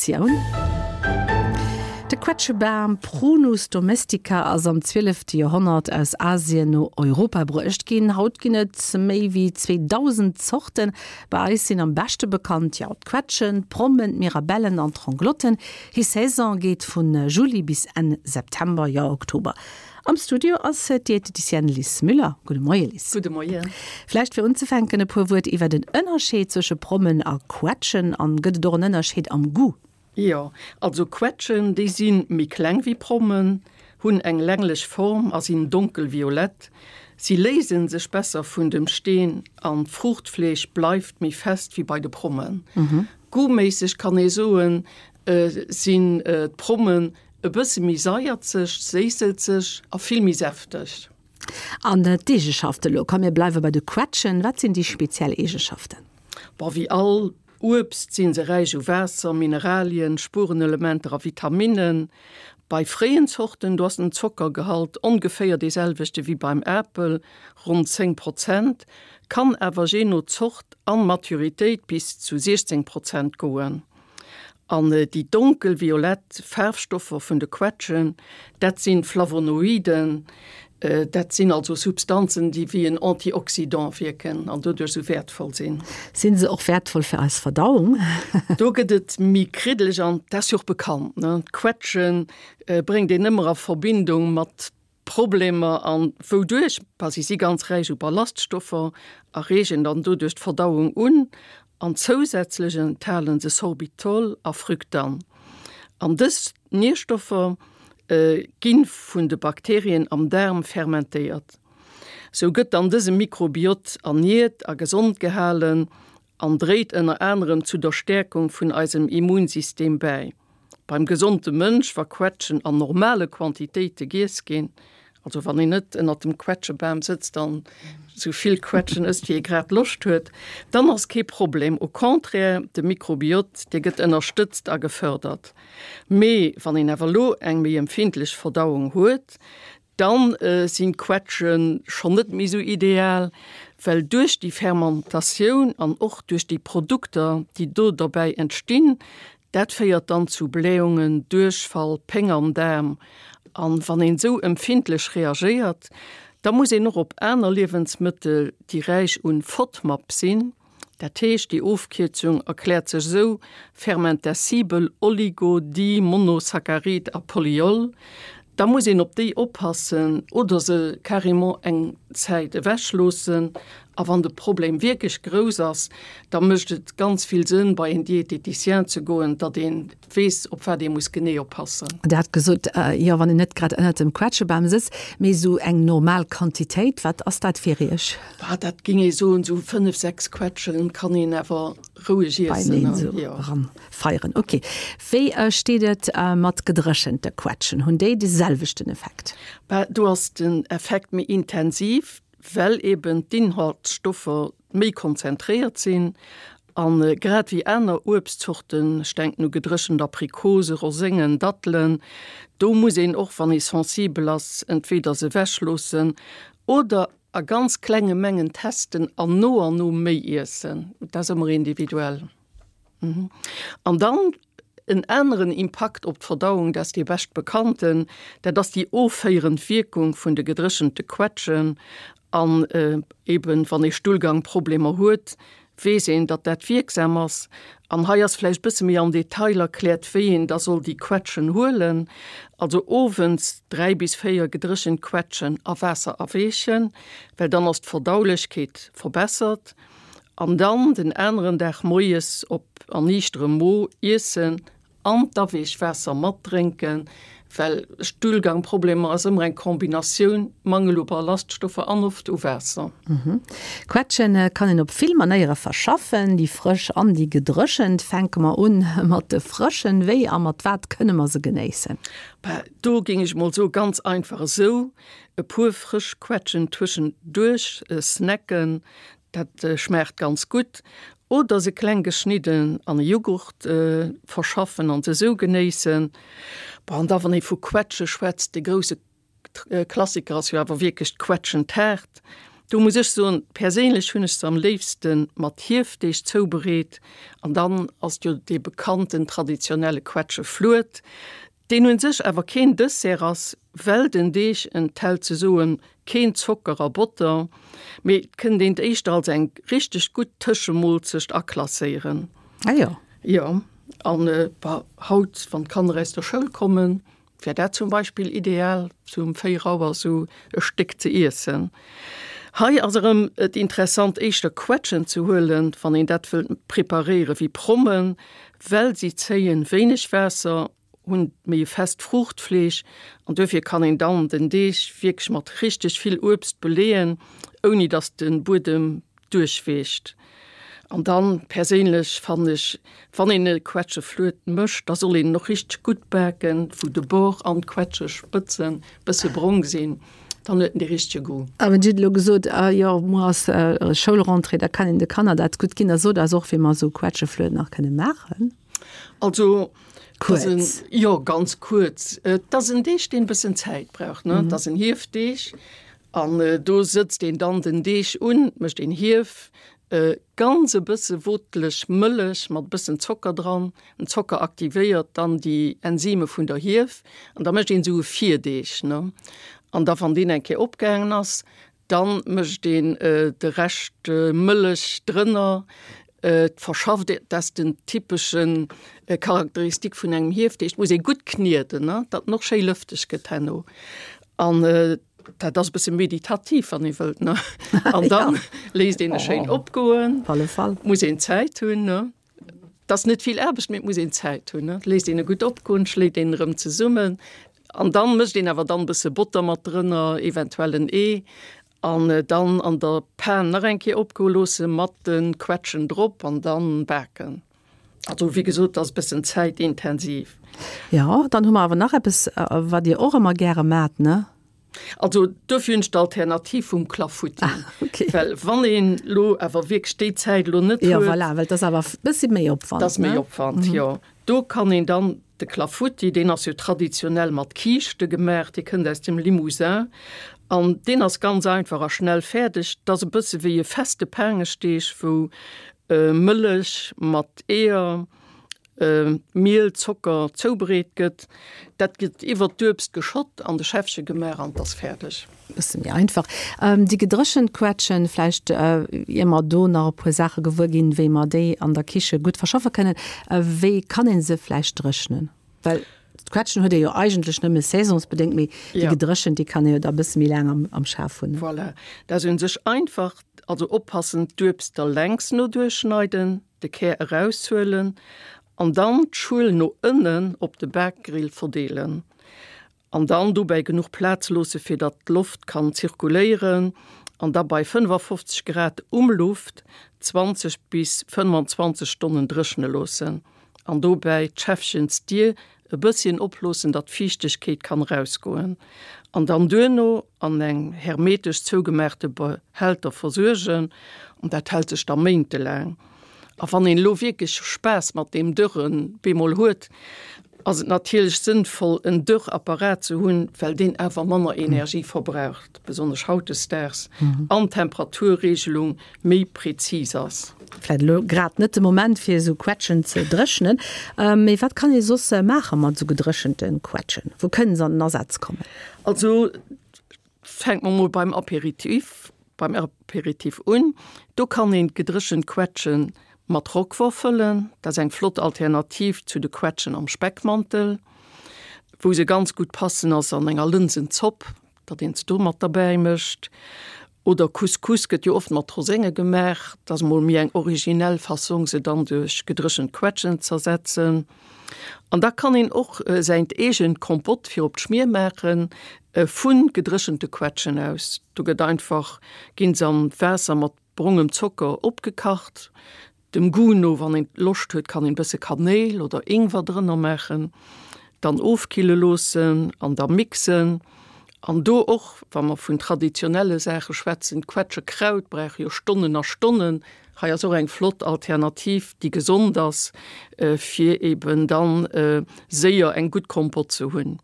Editioun. De Quetschebam, Prunus domestica, ass am zwielefte Joerhonnert aus Asien no Europa bruecht ginn. Haut ginn et méi wéi 2.000 Zorten. Bei eis sinn am beschte bekannt, jo, d'Quetschen, d'Prommen, d'Mirabellen an d'Ronglotten. Hir Saison geet vu Juli bis Enn September, jo Oktober. Am Studio ass d'Dieteticienne Lis Müller. Gudde Moie Lis. Gudde Moien. Vläicht fir unzefänken e puer Wuert iwwer den Ënnerscheed zwësche Prommen a Quetschen. An gëtt et och en Ënnerscheed am Goût? Jo, also Quetschen, déi si méi kleng wéi Prommen, hunn eng länglech Form a sinn donkelviolett. Si léise sech besser vun dem Steen an d'Fruuchtfleesch bleift méi fest wéi bei de Prommen. Goûtméisseg kann ee soen, sinn d'Prommen E bësse méi saierzeg, séisselzeg a vill méi säfteg. An d'Eegeschaften elo, komm mir bleiwe bei de Quetschen, wat sinn déi speziell Eegeschaften? Bon, wéi all Uebst sinn se räich u Waasser, Mineralien, Spurenelementer a Vitaminnen. Bei fréien Zorten, do ass den Zockergehalt ongeféier dee selwechte wéi beim Apel, ronn 10 Prozent, kann awer jee no Zort an Maturitéit bis zu 16 Prozent goen. An déi donkel-violett Faarfstoffer vun de Quetschen, dat si Flavonoiden, dat sinn also Substanzen, déi wéi en Antioxydant wierken an doduerch esou wäertvoll sinn. Sinn se och wäertvoll fir eis Verdauung? Do gëtt et méi kriddeleg an dat ass jo och bekannt, ne? D'Quetsche bréngt een ëmmer a Verbindung mat Problemer an wouduerch, bah si si ganz räich u Ballaststoffer a reegen dann doduerch d'Verdauung un an zousätzlech enthalen se Sorbitol a Fructan. An dës Nierstoffer gi vun de Bakterien am Daarm fermentéiert. Sou gëtt dann dëse Mikrobiot erniert a gesond gehalen an dréit ënner anerem zu der Stäerkung vun eisem Immunsystem bäi. Beim gesonde Mënsch, wa Quetschen an normale Quantitéite giess ginn, also wann een net ënnert dem Quetschebam sëtzt an esou vill Quetschen ësst wéi ee grad Loscht huet, dann ass kee Problem. Au contraire, de Mikrobiot, dee gëtt ënnerstëtzt a gefërdert. Mee wann een awer elo eng méi empfindlech Verdauung huet, Dann sinn d'Quetschen schonn net méi esou ideal, well duerch déi Fermentatioun an och duerch déi Produkter, déi do derbäi entstinn, dat féiert dann zu Blähungen, Duerchfall, Péng am Daarm. An wann een esou empfindlech reagéiert, da muss een och op aner Liewensmëttel, déi räich un FODMAP sinn, Dat heescht, déi Ofkierzung erkläert sech esou, fermentescibel Oligo-, Di-, Monosaccharid a Polyol. Da muss een op déi oppassen oder se carrément eng Zäit ewech loossen. A wann de Problem wierklech grouss ass, da mécht et ganz vill Sënn, bei een Diététicien ze goen, datt een weess, op wat ee muss genee oppassen. Der hat gesot, jo, wann een net grad ënnert dem Quetschebam sëtzt, mee esou eng normal Quantitéit, wat ass dat fir Iech? Bah, dat géing ee soen, esou 5, 6 Quetschen kann een awer roueg iessen. Beieneen esou eranfeieren, ok. Wéi steet et mat gedréchente Quetschen, hunn déi de selwechten Effekt? Bah, do ass den Effekt méi intensiv, well eben d'Inhaltsstoffer méi konzentréiert sinn an grad wéi aner Uebstzorten, ech denken u gedréchent Aprikose, Roséngen, Dattelen, do muss een och wann ee sensibel ass, entweder se ewech loossen oder a ganz klenge Mengen testen an no an no méi iessen. Dat ass ëmmer individuell. An dann en aneren Impakt op d'Verdauung, dat ass dee bescht bekannten, dat ass déi offéierend Wierkung vun de gedréchente Quetschen. An eben, wann ee Stullgangproblemer huet, weess een, datt dat wierksam ass. An hei ass vläicht e bësse méi am Detail erkläert, wéi een da soll déi Quetschen huelen. Also owends 3 bis 4 gedréchent Quetschen a Waasser aweechen, well dann ass d'Verdaulechkeet verbessert. An dann den aneren Dag moies op erniichterem Mo iessen an d'Aweechwaasser matdrénken, well Stullgangproblemer ass ëmmer eng Kombinatioun, Mangel u Ballaststoffer an oft u Waasser. Quetschen kann een op vill Manéiere verschaffen, déi frësch an déi gedréchent. Fänke mer un mat de frëschen. Wéi a mat wat kënne mer se genéissen? Bah, do géing ech mol soe ganz einfach esou, e puer frësch Quetschen tëschenduerch snacken, Dat schmaacht ganz gutt. Oder se kleng geschnidden an e Jughurt verschaffen an se esou genéissen. Bon, an da wann ee vu Quetsche schwätzt, de grousse Klassiker ass jo awer wierklech d'Quetschentaart. Do muss ech soen, perséinlech hunn ech se am léifste mat Hiefdeeg zoubereet. An dann ass et jo dee bekannten traditionelle Quetscheflued, deen un sech awer keen Dessert ass, well den Deeg enthält ze soen keen Zocker a Botter, mee et kënnt een et éischter als eng richteg gutt Tëschemoolzecht aklasséieren. Ah jo. Jo, an bah, haut, wann d'Kanner aus der Schoul kommen, Wär dat zum Beispill ideal, sou um 4 Auer sou e Stéck ze iessen. Hei ass erëm et interessant éischter Quetschen ze huelen, wann een dat wëllt preparéieren, wéi Prommen, well si zéien wéineg Waasser, hunn méi e fest Fruuchtfleesch an duerfir kann een dann den Deeg wierklech mat richteg vill Uebst beleeën, ouni dass de Buedem duerchweecht. An dann perséinlech fannen ech, wann een e Quetscheflued mécht, da soll een en och richteg gutt baken, wou de Bord an d'Quetschespëtzen bësse brong sinn, dann huet en dee richtege Goût. A wann Dir hutt elo gesot, ah jo, muer ass Schoulrentrée, da kann een de Kanner dat gutt ginn. Da sot eis och, wéi mer esou Quetscheflued nach kënne maachen. Also, kuerz. Jo, ganz kuerz. Et ass en Deeg, deen e bëssen Zäit brauch, ne. Et ass en Hiefdeeg. An do sëtzt een dann den Deeg un, mécht een Hief, ganz e bësse woteleg Mëllech mat e bëssen Zocker dran. Den Zocker aktivéiert dann déi Enzyme vun der Hief an da mécht een esou e Virdeeg, ne. An da wann deen eng Kéier opgaangen ass, dann mécht een de Rescht Mëllech drënner, et verschafft, dat ass den typeschen Charakteristik vun engem Hiefdeeg, et muss ee gutt knieden, ne, datt en och schéi lëfteg gëtt herno. An dat ass e bësse meditativ, wann ee wëllt, ne. An dann léisst een e schéin opgoen. Op alle Fall. Muss een Zäit hunn, ne. Et ass net vill Aarbecht, mee et muss een Zäit hunn, ne. Léisst een e gutt opgoen, schléit een erëm zesummen an dann mécht een awer dann e bësse Botter mat drënner, eventuell en Ee an dann an der Pan nach eng Kéier opgoe loosse mat de Quetschen drop an dann baken. Also wéi gesot, ass e bëssen zäitintensiv. Jo, dann hu mer awer nach eppes, wat Dir och ëmmer gäre maacht, ne? Also dofir hunn ech d'Alternativ vum Clafoutis. Ah, okay. Well wann een elo awer wierklech déi Zäit elo net huet. Jo, voilà, well 't ass awer e bëssi méi Opwand, ne? 't ass méi Opwand, jo. Do kann een dann de Clafoutis, deen ass jo traditionell mat Kiischte gemaach, dee kënnt aus dem Limousin an deen ass ganz einfach a schnell fäerdeg. 't ass e bësse wéi e feste Paangeschdeeg, wou Mëllech mat Eeër, Miel, Zocker zoubereet gëtt. Dat gëtt iwwert d'Uebst geschott, an de Schäffche gemaach an 't ass fäerdeg. Bësse méi einfach. Déi gedréchent Quetschen, vläicht ier mer do nach e puer Saache gewuer ginn, wéi mer déi an der Kiche gutt verschaffe kënnen, wéi kann ee se vläicht dréchnen? Well d'Quetschen huet ee jo eigentlech nëmme saisonsbedéngt, mee déi gedréchent, déi kann ee jo da e bësse méi laang am Schaf hunn. Voilà, dat ass u sech einfach. Also oppassen, d'Uebst da längs no duerchschneiden, de Kär eraushuelen an dann d'Schuel no ënnen op de Bakgrill verdeelen. An dann dobäi genuch Plaz loosse fir datt d'Loft kann zirkuléieren an da bei 55 Grad Umluft 20 bis 25 Stonnen dréchne loossen an dobäi d'Schäffchensdier e bësschen oploossen, datt d'Fiichtegkeet kann erausgoen an dann duerno an eng hermetesch zougemaachte Behälter versuergen an dat hält sech da méintelaang. A wann een elo wierklech Spaass mat deem Dörren bemol huet, ass et natierlech sënnvoll en Dörrapparat ze hunn, well deen awer manner Energie verbraucht, besonnesch hautdesdaags, an d'Temperaturregelung méi präzis ass. Vläit elo grad net de Moment fir esou Quetschen ze dréchnen, mee wat kann ee soss maache mat esou gedréchente Quetschen? Wou kënnen se an den Asaz kommen? Also fänke mer mol beim Aperitif beim Aperitif un. Do kann een d'gedréchent Quetschen mat Roquefort fëllen. Dat ass eng flott Alternativ zu de Quetschen am Speckmantel. Wou se ganz gutt passen ass an enger Lënsenzopp. datt een se do mat derbäi mécht. Oder Couscous gëtt jo oft mat Rosénge gemaach, dat ass mol méi eng originell Fassong, se dann duerch gedréchent Quetschen z'ersetzen. An da kann een och säint eegent Kompott fir op d'Schmier maachen, vu gedréchente Quetschen aus. Do gëtt einfach, ginn se an Waasser mat brongem Zocker opgekacht, Dem Goût no, wann een Loscht huet, kann een bësse Kanéil oder Ingwer drënner maachen. Dann ofkille loossen an da mixen. An do och, wa mer vun traditionelle Saache schwätzen, d'Quetschekraut brauch jo Stonnen a Stonnen. Hei ass och eng flott Alternativ, déi gesond ass, fir eben dann séier eng gutt Kompott ze hunn.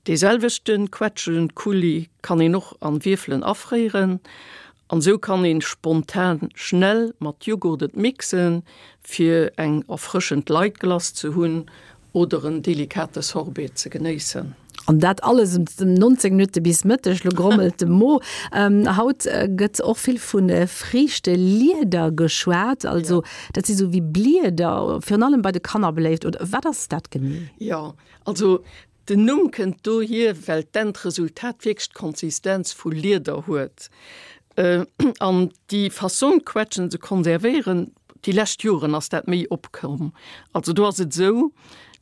Dee selwechte Quetschenkuli kann een och an Wierfelen afréieren. An esou kann een spontan schnell mat Joghurt et mixen fir eng erfrëschend light Glace ze hunn oder en delikate Sorbet ze genéissen. An dat alles ëm 19 Minutte bis Mëtteg. Lo grommelt de Mo. Haut gëtt och vill vu Friichtelieder geschwat. Also dat si sou wéi Blieder, virun allem bei de Kanner beléift. Oder wat ass dat genee? Jo, also Den Numm kënnt dohier, well d'Endresultat wierklech d'Konsistenz vu Lieder huet. An déi Fassong, d'Quetschen ze konservéieren, déi lescht Joren ass dat méi opkomm. Also do ass et esou,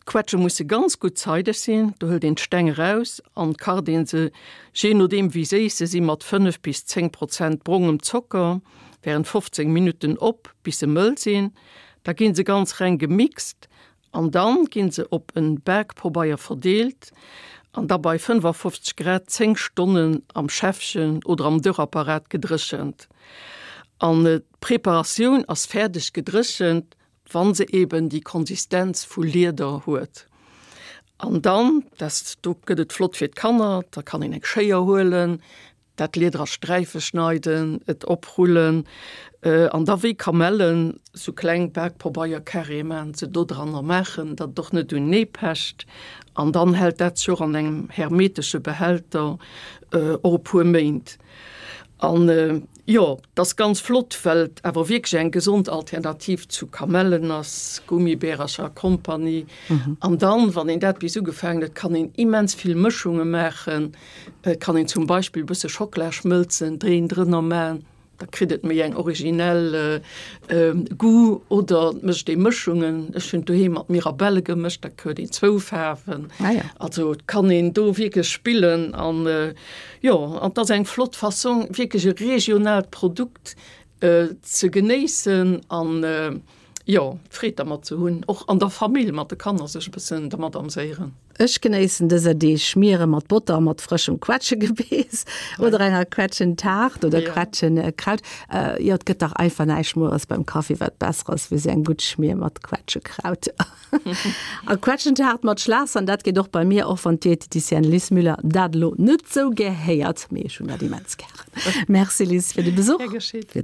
d'Quetsche musse ganz gutt zeideg sinn, do hëlt een d'Steng eraus an kacht een se, jee nodeem wéi séiss se sinn, mat 5 bis 10 Prozent brongem Zocker während 15 Minutten op, bis se mëll sinn. Da gi se ganz reng gemixt An dann ginn se op en Baakpobeier verdeelt an da bei 55 Grad 10 Stonnen am Schäffchen oder am Dörrapparat gedréchent. An d'Preparatioun ass fäerdeg gedréchent, wann se eben déi Konsistenz vu Lieder huet. An dann, dat do gëtt et flott fir d'Kanner, da kann een eng Schéier huelen, Dat Lieder a Sträife schneiden, et oprullen an da wéi Kamellen sou kleng Bakpabeier-Carréë maachen, se dodranner maachen, datt et och net unenee pecht. An dann hält dat sech och an engem hermetesche Behälter och e puer Méint. An jo, et ass ganz flott, well et awer wierklech eng gesond Alternativ zu Kamellen ass, Gummibärercher a Kompanie. An dann, wann een dat bis ugefaangen huet, kann een immens vill Mëschunge maachen. Et kann een zum Beispill e bësse Schockela schmëlzen, Dréen drënner man, da kritt et méi eng originell Goût. Oder et mécht ee Mëschungen, ech hunn doheem mat Mirabelle gemëscht, da huet een zwou Faarwen. Also et kann een do wierklech spillen an jo, an et ass eng flott Fassong wierklech e regionaalt Produkt ze genéissen an jo, Freed dermat ze hunn, och an der Famill mat de Kanner sech e bëssen dermat amséieren. Ech genéissen dëser Deeg Schmiere mat Botter a mat frëschem Quetschegebeess oder enger Quetschentaart oder Quetschekraut. Jo, et gëtt dach einfach näischt mueres beim Kaffi, wat besser ass wéi sou eng gutt Schmier mat Quetschekraut. A Quetschentaart mat Schlassahn, dat geet och bei mir, och wann d'Dieteticienne Lis Müller dat elo net sou gär héiert, mee ech hunn dat immens gären. Merci Lis fir de Besuch. Gär geschéet.